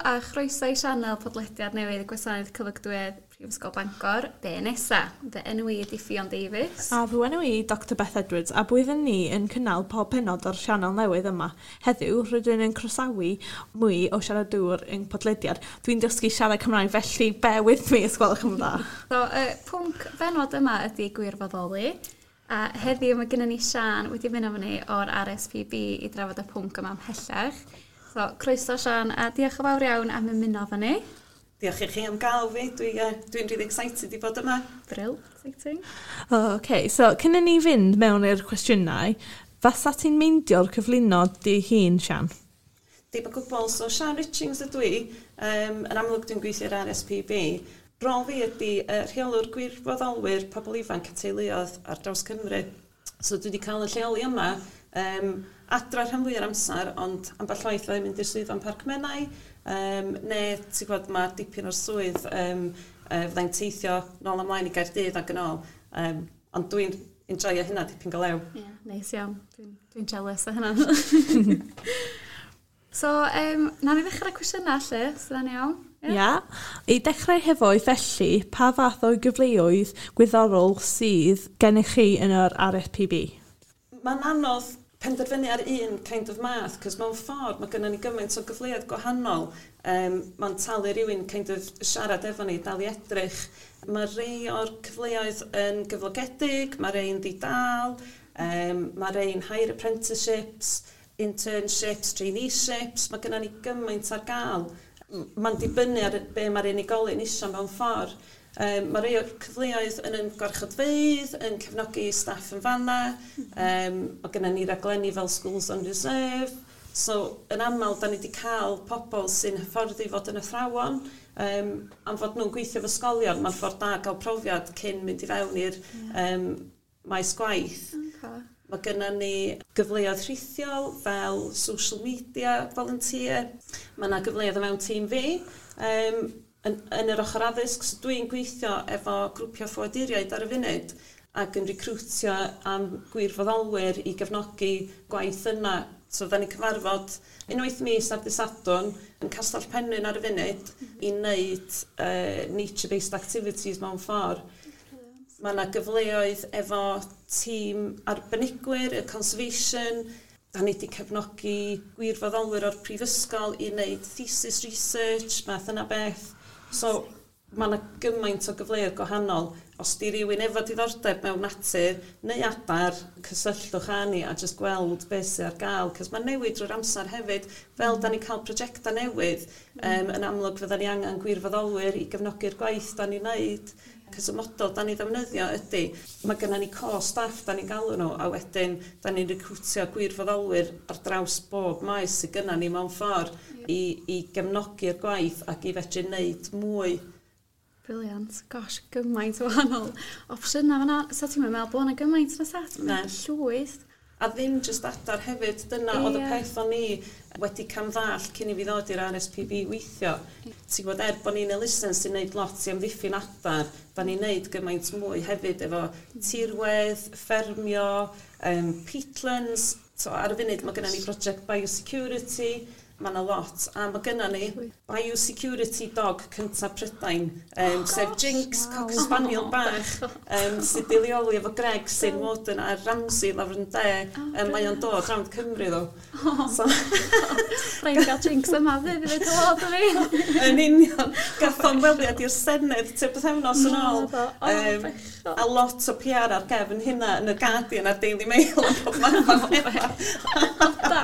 a chroeso i sianel podlediad newydd y Gwasanaeth Cyflogadwyedd Prifysgol Bangor, Be Nesa. Fy enw i ydi Ffion Davies. A fy enw i Dr Beth Edwards, a byddwn ni yn cynnal pob pennod o'r sianel newydd yma. Heddiw, rydyn yn croesawu mwy o siaradwyr yn podlediad. Dwi'n dysgu siarad Cymraeg, felly bear with me os gwelwch yn dda. So, y pwnc benod yma ydy gwirfoddoli. A heddiw mae gennym ni Sian wedi mynd efo ni o'r RSPB i drafod y pwnc yma ymhellach. So, croeso Sian, a diolch yn fawr iawn am ymuno efo ni. Diolch i chi am gael fi. Dwi'n really excited i fod yma. Brill, exciting. Oh, OK, so cyn i ni fynd mewn i'r cwestiynau, fasa ti'n meindio'r cyflwyno dy hun, Sian? Dim o gwbl. So Sian Richings ydw i. Yn amlwg dwi'n gweithio i'r RSPB. Rôl fi ydy rheolwr gwirfoddolwyr pobl ifanc a teuluoedd ar draws Cymru. So dwi wedi cael y lleoli yma adra rhan fwy o'r amser, ond ambell waith fyddai'n mynd i'r swyddfa yn Parc Menai, neu ti'n gwybod, mae dipyn o'r swydd fyddai'n teithio nôl ymlaen i Gaerdydd ac yn ôl. Ond dwi'n enjoyo hynna dipyn go lew. Ie, yeah, neis iawn. Dwi'n jealous o hynna. So, na ni ddechrau cwestiynau lle, so da'n iawn? Ia. Yeah. I dechrau hefo felly, pa fath o gyfleoedd gwyddorol sydd gennych chi yn yr RSPB? Mae'n anodd penderfynu ar un kind of math, cos mewn ffordd mae gennym ni gymaint o gyfleoedd gwahanol. Mae'n talu rhywun kind of siarad efo ni, dal i edrych. Mae rhai o'r cyfleoedd yn gyflogedig, mae rhai'n ddi-dal, mae rhai'n higher apprenticeships, internships, traineeships. Mae gennym ni gymaint ar gael. Mae'n dibynnu ar be mae'r unigolyn isio mewn ffordd. Mae rhai o'r cyfleoedd yn gwarchodfeydd, yn cefnogi staff yn fanna. Mae gennym ni raglenni fel Schools on Reserve. So, yn aml, da ni wedi cael pobl sy'n hyfforddi fod yn athrawon. Am fod nhw'n gweithio efo ysgolion, mae'n ffordd da gael profiad cyn mynd i fewn i'r maes gwaith. Mae gennym ni gyfleoedd rhithiol fel social media volunteer. Mae yna gyfleoedd o fewn tîm fi. Yn yr ochr addysg, so dwi'n gweithio efo grwpiau ffoaduriaid ar y funud ac yn recrwtio am gwirfoddolwyr i gefnogi gwaith yna. So, fydda ni'n cyfarfod unwaith mis ar dydd Sadwrn yn Castell Penrhyn ar y funud i wneud nature-based activities mewn ffordd. Mae yna gyfleoedd efo tîm arbenigwyr, y conservation. Da ni wedi cefnogi gwirfoddolwyr o'r prifysgol i wneud thesis research, math yna beth. So, mae yna gymaint o gyfleoedd gwahanol. Os di rhywun efo diddordeb mewn natur neu adar, cysylltwch â ni a jyst gweld beth sydd ar gael. Cos mae'n newid drwy'r amser hefyd. Fel da ni'n cael prosiectau newydd, yn amlwg fydda ni angen gwirfoddolwyr i gefnogi'r gwaith da ni'n neud. Cos y model da ni ddefnyddio ydy, mae gennym ni core staff da ni'n galw nhw, a wedyn da ni'n recrwtio gwirfoddolwyr ar draws bob maes sydd gennym ni mewn ffordd i gefnogi'r gwaith ac i fedru wneud mwy. Brilliant. Gosh, gymaint o wahanol opsiynau fan'na. Sa ti'n meddwl bod yna gymaint na sa? Ti'n Na. meddwl llwyth. A ddim jyst adar hefyd, dyna oedd y peth o'n i wedi camddallt cyn i fi ddod i'r RSPB weithio. Ti'n gwybod, er bod ni'n elusen sy'n neud lot i amddiffyn adar, da ni'n neud gymaint mwy hefyd efo tirwedd, ffermio, peatlands. So, ar y funud mae gennym ni project biosecurity, mae yna lot. A mae gennym ni biosecurity dog cyntaf Prydain, sef Jinx, Cocker Spaniel bach, sydd wedi leoli efo Greg sy'n warden ar Ramsey lawr yn de. Mae o'n dod rownd Cymru ddo. So, Rhaid gael Jinx yma fydd i ddweud helo o fi. Yn union. Gath o'n weliad i'r Senedd tua bythefnos yn ôl. Naddo. O, bechod. A lot o PR ar gefn hynna yn y Guardian a'r Daily Mail a pob math o bethau. Da.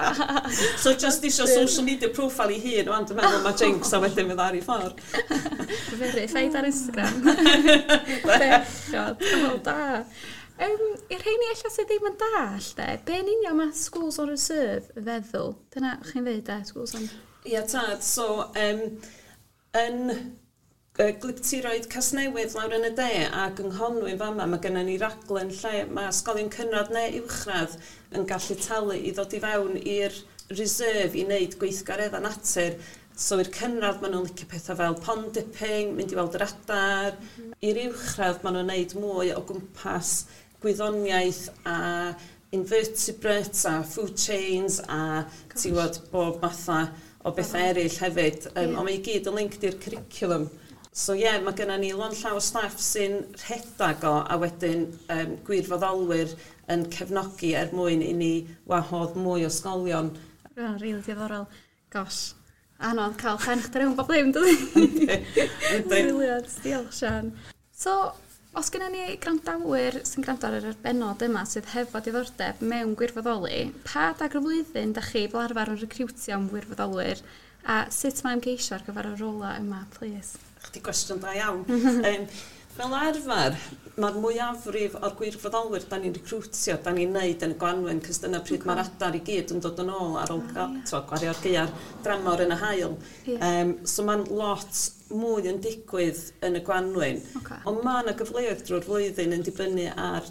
So just isio social media profile i hun, wan, dwi'n meddwl mae Jinx a wedyn fydd ar ei ffordd. Verified ar Instagram. Bechod. O, da. I'r rheini ella sydd ddim yn dallt, de, be yn union mae Schools on Reserve feddwl? Dyna chi'n dweud, de, Schools on... Ia, tad. So, yn Gwlyptiroedd Casnewydd lawr yn y de ac yng Nghonwy fama, mae gennym ni raglen lle mae ysgolion cynradd neu uwchradd yn gallu talu i ddod i fewn i'r reserve i wneud gweithgareddau natur. So i'r cynradd maen nhw'n licio pethau fel pond dipping, mynd i weld yr adar. I'r uwchradd maen nhw'n wneud mwy o gwmpas gwyddoniaeth a invertebrates a food chains a ti'n gwybod bob matha o bethau eraill hefyd. Ond mae i gyd yn linked i'r curriculum. So ie, yeah, mae gennym ni lond llaw o staff sy'n rhedag o, a wedyn gwirfoddolwyr yn cefnogi er mwyn i ni wahodd mwy o ysgolion. Oh, really diddorol. Gosh, anodd cael pen chdi rhwng bob ddim, dydy? Brilliant, diolch Sian. So, os gennym ni gwrandawyr sy'n gwrando ar yr bennod yma sydd hefo diddordeb mewn gwirfoddoli, pa adag o'r flwyddyn da chi fel arfer yn recriwtio am wirfoddolwyr a sut mae ymgeisio ar gyfer y rola yma, please? Chdi gwestiwn da iawn. Fel arfer, mae'r mwyafrif o'r gwirfoddolwyr da ni'n recrwtio, da ni'n neud yn y gwanwyn, cos dyna pryd mae'r adar i gyd yn dod yn ôl ar ôl gwario'r gaeaf dramor yn y haul. So mae'n lot mwy yn digwydd yn y gwanwyn. Ond mae yna gyfleoedd drwy'r flwyddyn yn dibynnu ar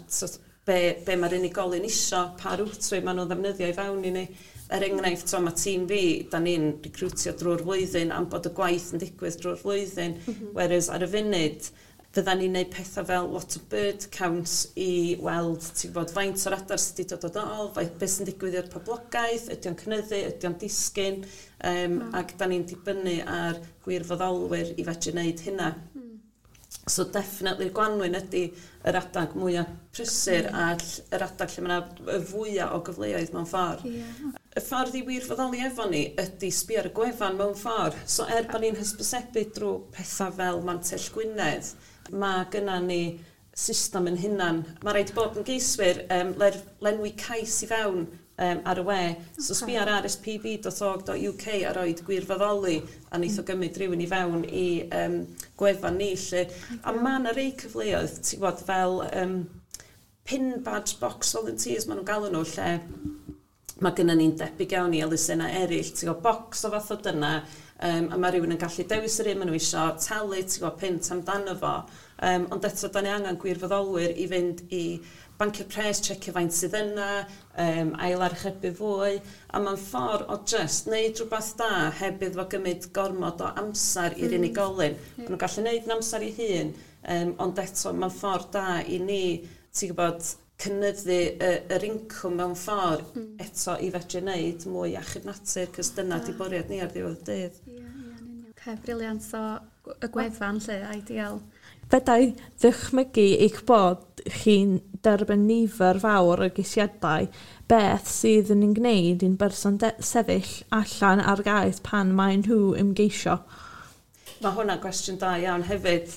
be mae'r unigolyn isio, pa route maen nhw'n ddefnyddio i fewn i ni. Er enghraifft, so, mae tîm fi, da ni'n recrwtio drwy'r flwyddyn am bod y gwaith yn digwydd drwy'r flwyddyn. Whereas ar y funud, fydda ni'n neud pethau fel lot o bird counts i weld, ti'n gwybod, faint o'r adar sydd wedi dod yn ôl, beth sy'n digwydd i'r poblogaeth, ydy o'n cynyddu, ydy o'n disgyn, ac da ni'n dibynnu ar gwirfoddolwyr i fedru wneud hynna. So definitely gwanwyn ydy yr adag mwyaf prysur a yr adag lle mae yna y fwyaf o gyfleoedd mewn ffordd. Y ffordd i wirfoddoli efo ni ydy sbio ar y gwefan mewn ffordd. So er bod ni'n hysbysebu drwy pethau fel Mantell Gwynedd, mae gynna ni system yn hunan. Mae rhaid i bob ymgeiswyr lenwi cais i fewn ar y we. So sbio ar rspb.org.uk a roid gwirfoddoli a neith o gymryd rhywun i fewn i gwefan ni. Lle. A mae yna rei cyfleoedd, ti'n gwybod, fel pin badge box volunteers maen nhw'n galw nhw, lle mae gynna ni'n debyg iawn i elusennau eraill, ti'n gwybod, box o fath o dyna, a mae rhywun yn gallu dewis yr un maen nhw isio, talu, ti'n gwybod, punt amdano fo. Ond eto, da ni angen gwirfoddolwyr i fynd i bancio'r pres, checio faint sydd yna, ail archebu fwy, a mae'n ffordd o just neud rhywbeth da heb iddo fo gymryd gormod o amser i'r unigolyn. Maen nhw'n gallu neud yn amser i hun, ond eto mae'n ffordd da i ni, ti'n gwybod, cynyddu yr incwm mewn ffordd eto i fedru wneud mwy achub natur, cos dyna di bwriad ni ar ddiwedd y dydd. Ie, ie, yn union. Okay, brilliant. So, y gwefan lle, ideal. Fedai ddychmygu eich bod chi'n derbyn nifer fawr o geisiadau, beth sydd yn ei gwneud i'n berson sefyll allan ar gais pan maen nhw ymgeisio? Mae hwnna'n gwestiwn da iawn hefyd.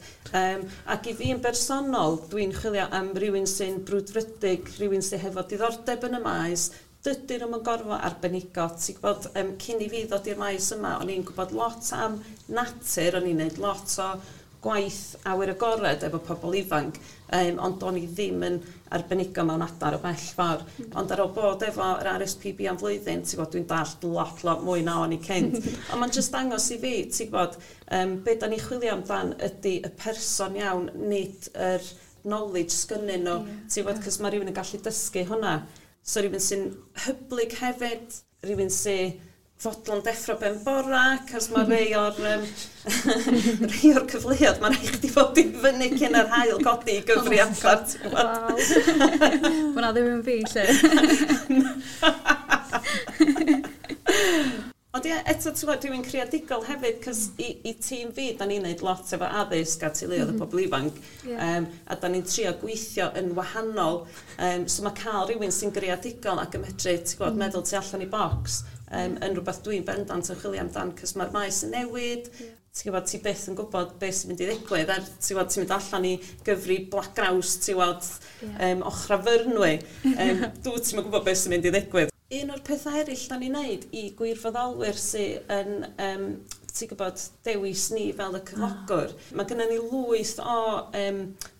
Ac i fi yn bersonol, dwi'n chwilio am rhywun sy'n brwdfrydig, rhywun sy'n hefo diddordeb yn y maes. Dydyn nhw'm yn gorfod arbenigo. Ti'n gwybod, cyn i fi ddod i'r maes yma, o'n i'n gwybod lot am natur, o'n i'n gwneud lot o gwaith awyr agored efo pobl ifanc, ond o'n i ddim yn arbenigo mewn adar o bell ffordd. Ond ar ôl bod efo yr RSPB am flwyddyn, ti'n gwybod, dwi'n dallt lot, lot mwy na o'n i cynt. Ond mae'n just dangos i fi, ti'n gwybod, be da ni chwilio amdan ydy y person iawn, nid yr knowledge sgynnyn nhw, ti'n gwybod, cos mae rhywun yn gallu dysgu hwnna. So rhywun sy'n hyblyg hefyd, rhywun sy'n fodlon deffro ben bora, cos mae rhai o'r cyfleoedd, mae'n rhaid chdi fod i fyny cyn yr haul godi i gyfri adar, ti'n gwybod? Waw. Hwnna ddim yn fi, lle. Ond ie, eto, ti'n gwybod, dwi'n creadigol hefyd, cos i tîm fi, da ni'n neud lot efo addysg a teuluoedd y pobl ifanc, a da ni'n trio gweithio yn wahanol. So mae cael rhywun sy'n greadigol ac yn medru, ti'n gwybod, meddwl tu allan i bocs, yn rhywbeth dwi'n bendant yn chwilio amdan, cos mae'r maes yn newid, ti'n gwybod, ti byth yn gwybod beth sy'n mynd i ddigwydd, er, ti'n gwybod, ti'n mynd allan i gyfri black grouse, ti'n gwybod, ochra Fyrnwy, dwi ti'n gwybod beth sy'n mynd i ddigwydd. Un o'r pethau eraill da ni'n neud i gwirfoddolwyr sydd yn, ti'n gwybod, dewis ni fel y cyflogwr. Mae gennym ni lwyth o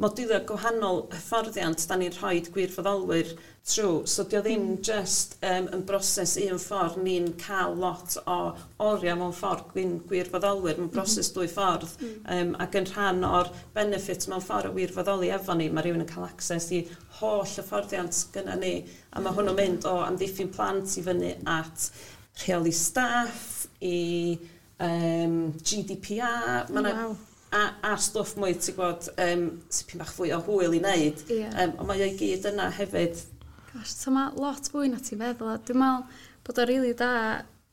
modiwlau gwahanol hyfforddiant da ni'n rhoi gwirfoddolwyr trwy. So dio ddim just yn broses un ffordd, ni'n cael lot o oriau mewn ffordd gwirfoddolwyr, mae'n broses dwy ffordd. Ac yn rhan o'r benefit mewn ffordd o wirfoddoli efo ni, mae rhywun yn cael access i holl hyfforddiant gyda ni. A mae hwnnw'n mynd o amddiffyn plant i fyny at rheoli staff, i GDPR, ma' 'na a stwff mwy, ti'n gwybod, tipyn bach fwy o hwyl i wneud. Ond mae o'i gyd yna hefyd. Gosh, so mae lot fwy na ti'n feddwl. A dwi'n meddwl bod o'n rili da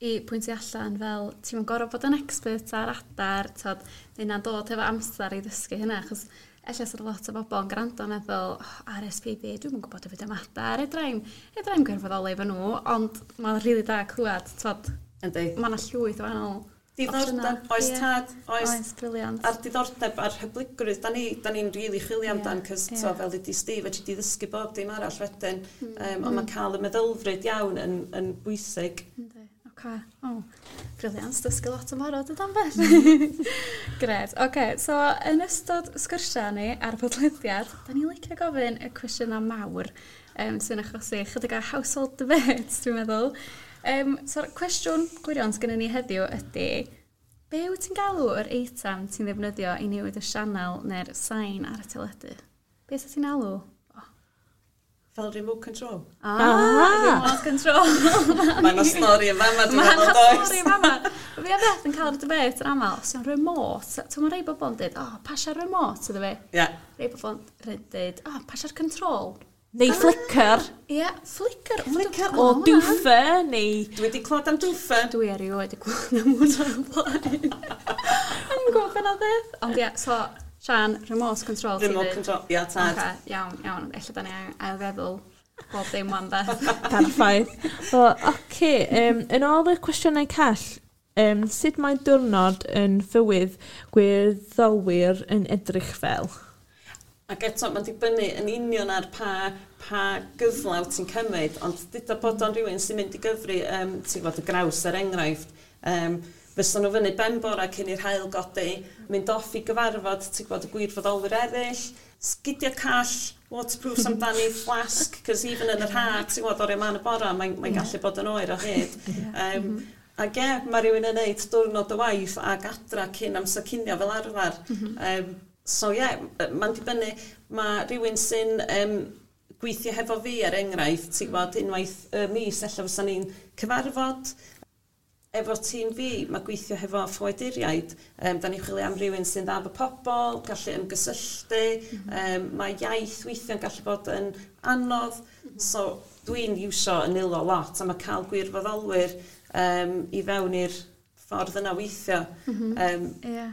i pwyntio allan fel ti'n yn gorfod bod yn expert ar adar, tod, neu na'n dod efo amser i ddysgu hynna, achos ella sydd lot o bobl yn gwrando yn meddwl, oh, RSPB, dwi'm yn gwybod efo am adar, edrai'm gwirfoddoli efo nhw, ond mae'n rili da clywed, tod, mae yna llwyth o wahanol diddordeb, oes tad, oes. Oes, brilliant. A'r diddordeb a'r hyblygrwydd, da ni'n da ni really chwilio amdan, cos yeah. Fel ydi Steve, fedri di ddysgu bob dim arall wedyn, ond mae cael y meddylfryd iawn yn bwysig. Yndi, oce. O, brilliant, dysgu lot yn barod ydan beth. Gret, oce, so yn ystod sgyrsiau ni ar y podlediad, da ni'n licio gofyn y cwestiynau mawr sy'n achosi chydig o household debates, dwi'n meddwl. So'r cwestiwn gwirion sydd gennym ni heddiw ydy, be wyt ti'n galw yr eitem ti'n ddefnyddio i newid y sianel neu'r sain ar y teledu? Be sydd ti'n alw? Oh. Fel remote control. Ah, remote control. Mae yna stori yn fama, dwi'n meddwl, Mae does? yna stori yn fama. Fi a Beth yn cael yr debate yn aml, os yw'n remote, ti'n mae rhai bobl yn dweud, oh, pasia'r remote iddo fi. Ie. Rhai bobl yn dweud, oh, pasia'r control. Neu flicker. Ie, yeah, flicker. Flicker. O dwffer, neu... Dwi wedi clywed am dwffer. Dwi erioed wedi clywed am hwnna o'r blaen. O'n i'n gwybod beth oedd beth. Ond ie, so, Sian, remote control. ti'n Remote deud? control, ia, tad. Oce, iawn, iawn. Ella da ni ailfeddwl bob dim wan beth. Perffaith. Wel, oce, yn ôl y cwestiynau call, sut mae diwrnod yn fywyd gwirfoddolwyr yn edrych fel? Ac eto, mae'n dibynnu yn union ar pa gyfle wyt ti'n cymryd, ond dyda bod o'n rhywun sy'n mynd i gyfri, ti'n gwybod, y graws er enghraifft, fysa nhw fyny ben bora cyn i'r haul godi, mynd off i gyfarfod, ti'n gwybod, y gwirfoddolwyr eraill, sgidiau call, waterproofs amdani, flask, cos even yn yr ha, ti'n gwybod, oriau man y bora, mae'n mae gallu bod yn oer o hyd. Ac ie, mae rhywun yn neud diwrnod o waith ac adra cyn amser cinio fel arfer. So ie, yeah, mae'n dibynnu, mae rhywun sy'n gweithio hefo fi er enghraifft, ti'n gwybod, unwaith y mis, ella fysa ni'n cyfarfod efo tîm fi, mae gweithio hefo ffoaduriaid, da ni'n chwilio am rhywun sy'n dda efo pobl, gallu ymgysylltu, mae iaith weithio'n gallu bod yn anodd, so dwi'n iwsio yn nilo lot, a mae cael gwirfoddolwyr i fewn i'r ffordd yna weithio. Ie.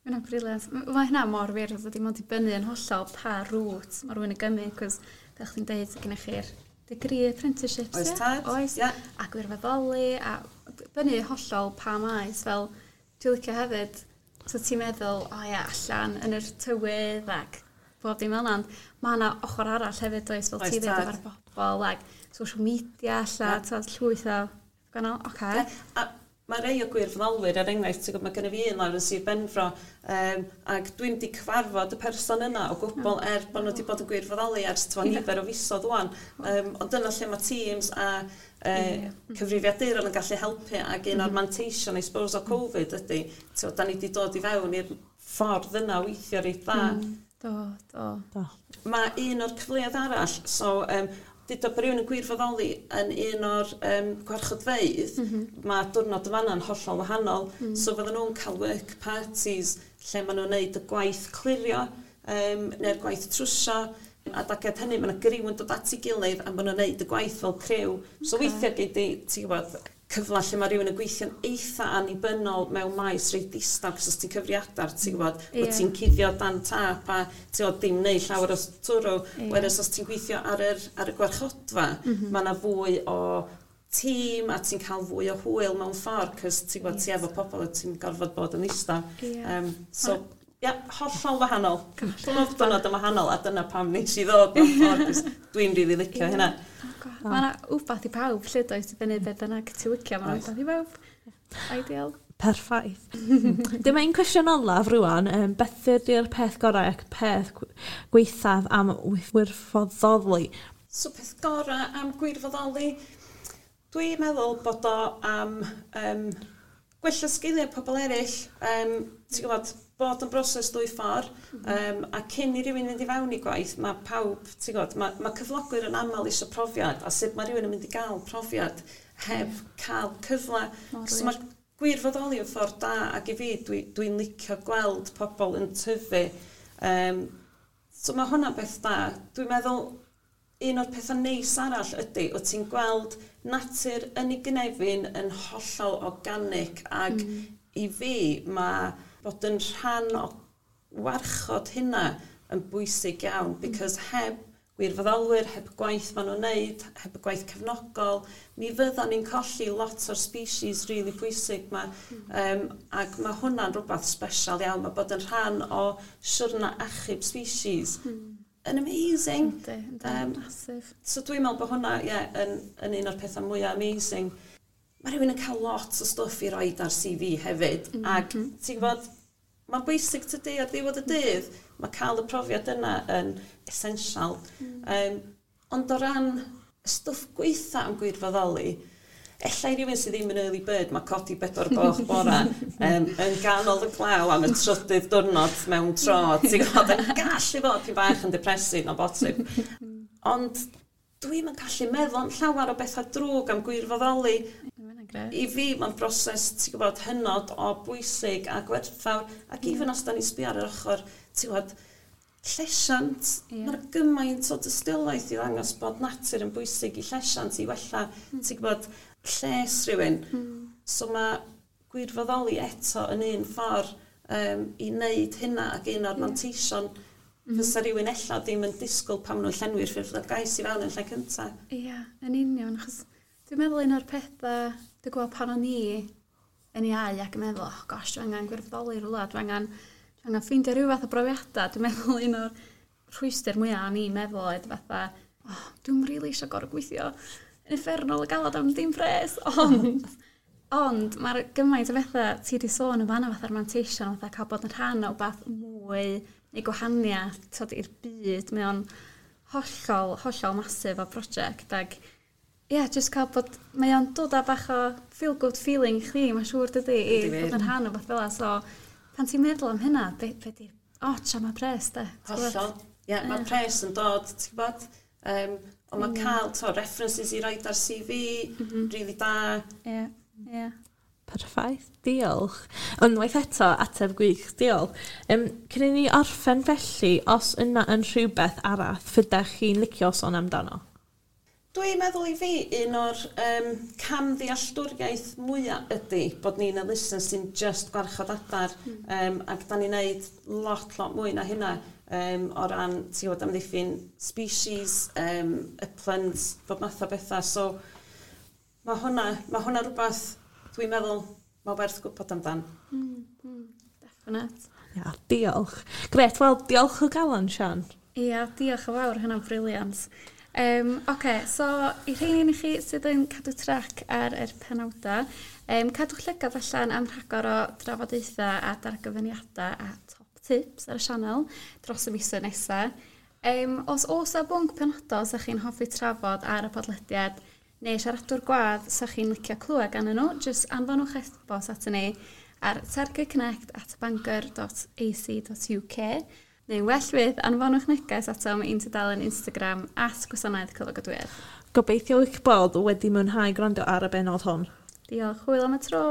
Mae hynna'n brilliant. Mae hynna mor wir, oedd dim ond dibynnu yn hollol pa route mae rhywun yn gymryd, cos fel chdi'n deud, gennych chi'r degree apprenticeships, Oes ie? tad, Oes. ie. A gwirfoddoli, a dibynnu hollol pa maes, fel dwi'n licio hefyd, so ti'n meddwl, o ia, allan yn yr tywydd ac bob dim fel 'na, ond mae yna ochr arall hefyd, oes, fel Oes ti ddeud tad. efo'r bobl, ac social media, alla, Ie. yeah. llwyth o gwahanol, oce. Ie, A mae rei o gwirfoddolwyr, er enghraifft, ti'n gwybod, mae gennym fi un lawr yn Sir Benfro, ac dwi'n di cyfarfod y person yna o gwbl er bod nhw wedi bod yn gwirfoddoli ers twa nifer o fisoedd ŵan. Ond dyna lle mae Teams a cyfrifiaduron yn gallu helpu, ac un o'r manteision, I suppose, o Covid ydy, ti'n gwbod, da ni wedi dod i fewn i'r ffordd yna o weithio reit dda. Do, do. Do. Mae un o'r cyfleoedd arall, so deuda bod rhywun yn gwirfoddoli yn un o'r gwarchodfeydd, mae diwrnod yn fanna'n hollol wahanol. So fydden nhw'n cael work parties lle maen nhw'n neud y gwaith clirio neu'r gwaith trwsio. A daged hynny, mae yna griw yn dod at ei gilydd a maen nhw'n neud y gwaith fel criw. So weithiau gei di, ti'n gwybod, cyfle lle mae rhywun yn gweithio'n eitha annibynnol mewn maes reit ddistaw, cos os ti'n cyfri adar, ti'n gwybod, bod ti'n cuddio dan tap a ti'n gwybod, dim neud llawer o twrw. Whereas os ti'n gweithio ar y gwarchodfa, mae yna fwy o tîm a ti'n cael fwy o hwyl mewn ffordd, cos ti'n gwybod, ti efo pobl a ti'n gorfod bod yn ddistaw. So, ia, hollol wahanol. Pob diwrnod yn wahanol, a dyna pam nes i ddod mewn ffordd, 'cos dwi'n rili licio hynna. Mae yna wbath i pawb, lle does, i fyny beth bynnag ti'n licio, mae yna Oes. wbath i bawb. Ideal. Perffaith. Dyma un cwestiwn olaf rwan. Beth ydy'r peth gorau ac peth gwaethaf am wirfoddoli? So peth gorau am gwirfoddoli, dwi'n meddwl bod o am gwella sgiliau pobl eraill, ti'n gwybod, bod yn broses dwy ffordd, a cyn i rywun fynd i fewn i gwaith, mae pawb, ti'n gwybod, mae cyflogwyr yn aml eisiau profiad, a sut mae rhywun yn mynd i gael profiad heb cael cyfle. Mor So wir. mae gwirfoddoli yn ffordd da, ac i fi, dwi'n licio gweld pobl yn tyfu. So mae hwnna'n beth da. Dwi'n meddwl Un o'r pethau neis arall ydy, o ti'n gweld natur yn ei gynefin yn hollol organic ac i fi mae bod yn rhan o warchod hynna yn bwysig iawn, because heb gwirfoddolwyr, heb gwaith maen nhw'n neud, heb y gwaith cefnogol, mi fyddan ni'n colli lot o'r species really pwysig ma. Ac mae hwnna'n rhywbeth special iawn, mae bod yn rhan o siwrna achub species yn amazing. Yndi, massive. So dwi'n meddwl bod hwnna, yeah, yn un o'r pethau mwyaf amazing. Mae rhywun yn cael lot o stwff i roed ar CV hefyd, ac ti'n gwybod, mae'n bwysig tydi ar ddiwedd y dydd, mae cael y profiad yna yn essential. Ond o ran stwff gweitha am gwirfoddoli, ella i rywun sydd ddim yn early bird, mae codi 4 gloch bora yn ganol y glaw am y trydydd diwrnod mewn tro, ti'n gwybod, yn gallu fod pyn bach yn depressing o bosib. Ond dwi'm yn gallu meddwl am llawer o bethau drwg am gwirfoddoli. Mae hynna'n grêt. I fi, mae'n broses, ti'n gwybod, hynod o bwysig a gwerthfawr. Ac even os da ni'n sbio ar yr ochr, ti'n gwybod, llesiant, mae'n gymaint o dystiolaeth i ddangos bod natur yn bwysig i llesiant, i wella, ti'n gwybod, lles rhywun. So mae gwirfoddoli eto yn un ffordd i wneud hynna ac un o'r manteision fysa rhywun ella ddim yn disgwyl pan maen nhw'n llenwi'r ffurflen gais i fewn yn lle cyntaf. Ia, yn union, achos dwi'n meddwl un o'r pethau, dwi'n gweld pan o'n i yn iau ac yn meddwl, oh gosh, dwi angen gwirfoddoli rhywle, dwi angen ffeindio rhyw fath o brofiadau. Dwi'n meddwl un o'r rhwystr mwyaf o'n i'n meddwl oedd fatha, oh, dwi'm rili eisiau gorfod gweithio yn uffernol o galad am dim pres, ond mae'r gymaint o bethau ti wedi sôn yn fanna fatha'r manteision, fatha cael bod yn rhan o beth mwy neu gwahaniaeth t'od, i'r byd, mae o'n hollol, hollol massive o brosiect ac ie, yeah, just cael bod, mae o'n dod â bach o feel good feeling i chdi, mae'n siŵr dydy, i Yndi wir. fod yn rhan o beth fel 'a. So, pan ti'n meddwl am hynna, be di'r ots am y pres, de? Ti'n gwbod? Hollol. Ie, yeah, mae pres yn dod, ti'n gwybod? Ond mae cael to, references i roid ar CV, really da. Ie, ie. Perffaith, diolch. Unwaith eto, ateb gwych, diolch. Cyn i ni orffen felly, os yna yn rhywbeth arall fyddech chi'n licio sôn amdano? Dwi'n meddwl i fi, un o'r camddealltwriaeth mwyaf ydy bod ni'n elusen sy'n just gwarchod adar ac da ni'n neud lot, lot mwy na hynna o ran, ti'n gwybod, amddiffyn species, uplands, bob math o bethau. So, mae hwnna rhywbeth dwi'n meddwl mae werth gwybod amdan. Definite. Ia, diolch. Grêt, wel, diolch o galon, Sian. Ia, diolch yn fawr, hynna'n brilliant. Oce, so i rheini i chi sydd yn cadw trac ar yr penawdau, cadwch llygad allan am rhagor o drafodaethau a dargyfyniadau a top tips ar y sianel dros y misoedd nesaf. Os oes 'na bwnc penodol sa chi'n hoffi trafod ar y podlediad neu siaradwr gwadd sa chi'n licio clywed gan nhw, jyst anfonwch e-bost ato ni ar targetconnect@bangor.ac.uk neu well fydd anfonwch neges atom i'n tudalen Instagram @gwasanaethcyflogadwyedd. Gobeithio eich bod wedi mwynhau gwrando ar y bennod hon. Diolch, hwyl am y tro!